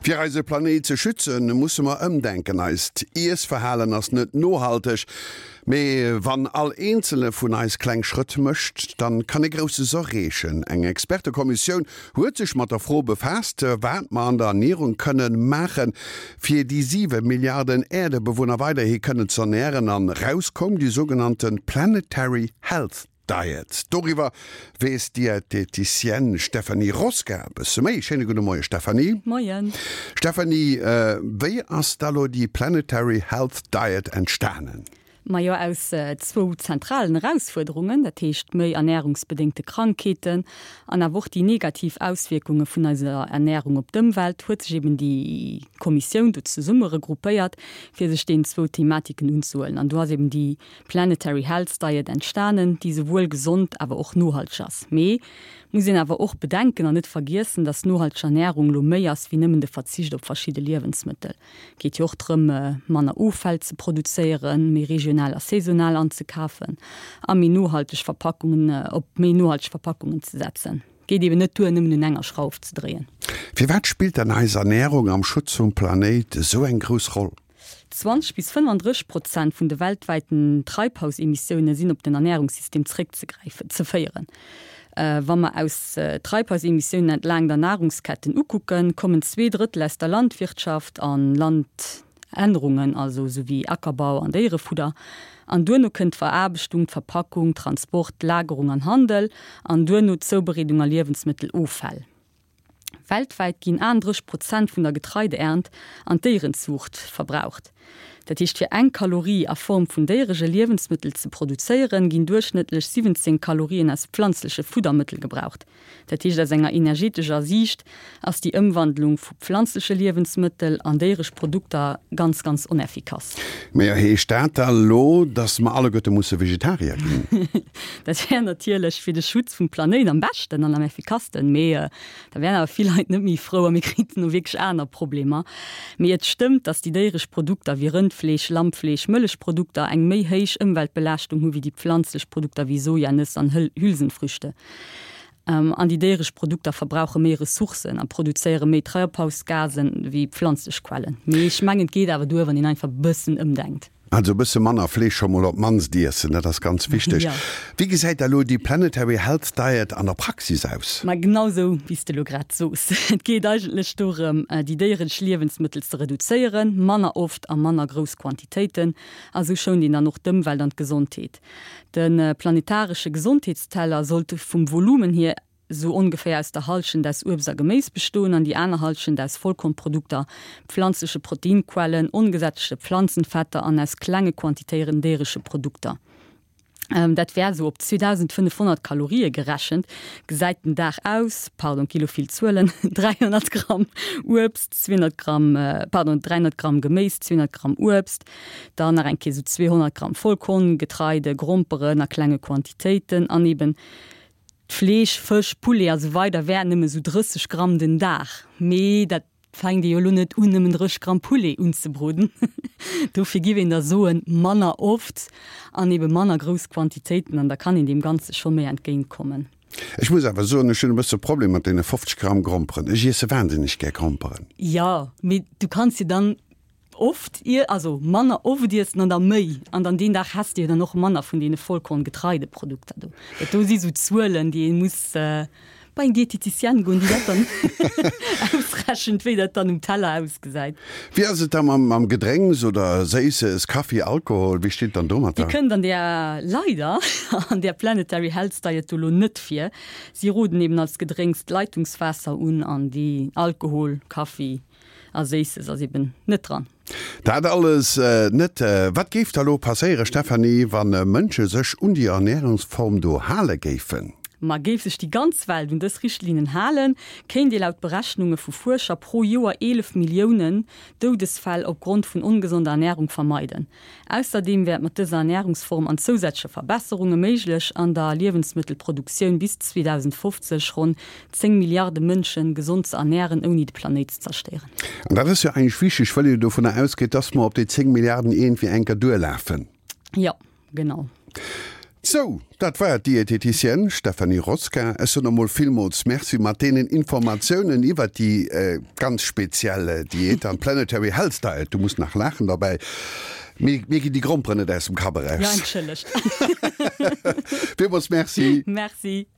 Fir eise Planéit ze schützen, musse mer ëmdenken. Eist Iessverhalen ass net nohalteg. Mee wann all eenzele vun eis kleng Schrëtt mécht, dann kann ee Grousses erreechen. Eng Expertekommissioun huet sech mat der Fro befaasst, wat mer an der Ernierung kënnen maachen, fir déi 7 Milliarden Äerdebewunner weiderhi kënnen z'ernären. An raus koum déi sougenannte Planetary Health Diet. Doriwwer weess d'Dieteticienne Stéphanie Rosca e bësse méi. Schéine gudde Moie Stéphanie. Moien. Stéphanie, wéi ass da lo déi Planetary Health Diet entstanen? Majo aus zwou zentralen Erausfuerderungen, dat heescht méi ernärungsbedéngte Krankheeten an awer och déi negativ Auswierkunge vun eiser Ernärung op d'Ëmwelt, huet sech eben déi Kommissioun do zesumme regroupéiert, fir sech deenen zwou Thematiken unzehuelen. An do ass eben déi Planetary Health Diet entstanen, déi souwuel gesond awer och nohalteg ass. Mee muss een awer och bedenken an net vergiessen, dass nohalteg Ernärung lo méi ass wéi nëmmen de Verzicht op verschidde Liewensmëttel. Geet jo och drëm, manner Offäll ze produzéieren, méi regional a saisonal anzekafen a méi nohalteg Verpackungen op méi nohalteg Verpackungen ze setzen. Geet eben net duer, nëmmen un enger Schrauf ze dréien. Firwat spillt dann eis Ernärung am Schutz vum Planéit esou eng grouss Roll? 20 bis 35 Prozent vun de weltwäiten Treibhausemissioune sinn op den Ernärungssystem zeréckzegräifen, ze féieren. Wa mer aus Treibhausemissiounen entlaang der Nahrungsketten ukucken, kommen zweedrëttel aus der Landwirtschaft an Landännerungen, also esou wéi Ackerbau an Déierefudder. An duerno kënnt d'Veraarbechtung, d'Verpackung, Transport, Lagerung an Handel an duerno d'Zoubereedung a Liewensmëtteloffäll. Weltwäit ginn 38 Prozent vun der Getreideernt an d'Déierenzuucht verbraucht. Dat heescht, fir eng Kalorie a Form vun déierege Liewensmëttel ze produzéieren, ginn duerchschnëttlech 17 Kalorien aus pflanzleche Fuddermëttel gebraucht. Dat heescht, aus enger energetescher Siicht ass déi Ëmwandlung vu pflanzleche Liewensmëttel an déieresch Produkter ganz, ganz oneffikass. Mee heescht dat da lo, dass mer alleguerte musse Vegetarier ginn? Dat wär natierlech fir de Schutz vum Planéit am beschten an am effikassten, mee da wären awer vill Leit net méi frou a mir kriten no wierklech aner Problemer. Mee et stëmmt, datt déi déieresch Produkter wéi Rëndfleesch, Lammfleesch, Mëllechprodukter eng méi héich Ëmweltbelaaschtung hu wéi déi pflanzlech Produkter wéi Soja, Nëss an Hülsenfrüchte. An déi déieresch Produkter verbrauche méi Ressourcen a produzéiere méi Treibhausgasen wéi pflanzlech Quellen. Mee ech mengen, et geet awer duer, wann een einfach e bëssen ëmdenkt. Also e bësse manner Fleesch scho mol op d'mannst iessen, dat ass ganz wichteg. Wéi gesäit da lo déi Planetary Health Diet an der Praxis aus? Ma genau sou, wéi s de lo grad soos. Et geet eigentlech dorëm, déi déieresch Liewensmëttel ze reduzéieren, manner oft a manner grouss Quantitéiten. A sou schount een dann och d'Ëmwelt an d'Gesondheet. De planetaresche Gesondheetsteller sollt vum Volumen hier sou ongeféier aus der Hallschent aus Uebst a Geméis bestoen an déi aner Hallschent aus Vollkornprodukter, pflanzleche Proteinquellen, ongesättegte Pflanzenfetter an aus klenge Quantitéieren déieresche Produkter. Dat wär sou op 2.500 Kalorië gerechent, gesäit den Dag aus, pardon, gi lo vill Zuelen, 300 Gramm Uebst, 200 Gramm, pardon, 300 Gramm Geméis, 200 Gramm Uebst, dann nach eng Kéier sou 200 Gramm Vollkorn, Getreide, Gromperen a klenge Quantitéiten an eben Fleesch, Fësch, Poulet a sou weider wär nëmme sou 30 Gramm den Dag. Mee dat fänkt ee jo elo net un, nëmmen 30 Gramm Poulet unzebroden. Dofir giff een da soen, manner oft an ebe manner grouss Quantitéiten an da kann een deem Ganze scho méi entgéint kommen. Ech muss awer soen, ech hunn e bësse Problem mat deene 50 Gramm Gromperen. Ech iesse wahnsinneg gär Gromperen. Jo, mee du kanns jo dann Oft ier, also manner oft iessen an da méi, an dann deen Dag häss de jo dann och manner vun deene Vollkorn-Getreideprodukter do. Dat do si sou Zuelen, déi ee muss bei eng Dieteticienne goen, déi dat dann ausrechent, wéi dat dann um Teller ausgesäit. Wéi ass et da mam Gedrénks oder Séisses, Kaffi, Alkohol, wéi steet et dann domatter? Déi kënnt an där, leider, an där Planetary Health Diet do lo net vir. Si roden eben als Gedrénks d'Leitungswaasser un an déi Alkohol, Kaffi, A Séisses ass eben net dran. Dat alles net. Wat géif da lo passéiere Stéphanie, wa Mënsche sech un déi Ernärungsform do hale géifen? Ma géif sech déi ganz Welt un dës Richtlinnen halen, kéint ee laut Berechnunge vu Fuerscher pro Joer 11 Milliounen Doudesfäll opgrond vun ongesonder Ernärung vermeiden. Ausserdeem wär et mat dëser Ernärungsform an zousätzleche Verbesserunge méiglech, an der Liewensmëttelproduktioun bis 2050 ronn 10 Milliarde Mënsche gesond ze ernären, ouni de Planéit ze zerstéieren. An dat ass jo eigentlech wichteg, well een jo dovunner ausgeet, dass mer op déi 10 Milliarden iergendwéi enker duerlafen. Jo, genau. Sou, dat war d'Dieteticienne Stéphanie Rosquin. Ech soen emol villmools Merci mat deenen Informatiounen iwwert déi ganz speziell Diät an d'Planetary Health Diet. Du muss nach laachen derbäi. Mir mir ginn déi Gromperen net aus dem Kapp eraus. Jo, entschëllegt. Villmools Merci. Merci.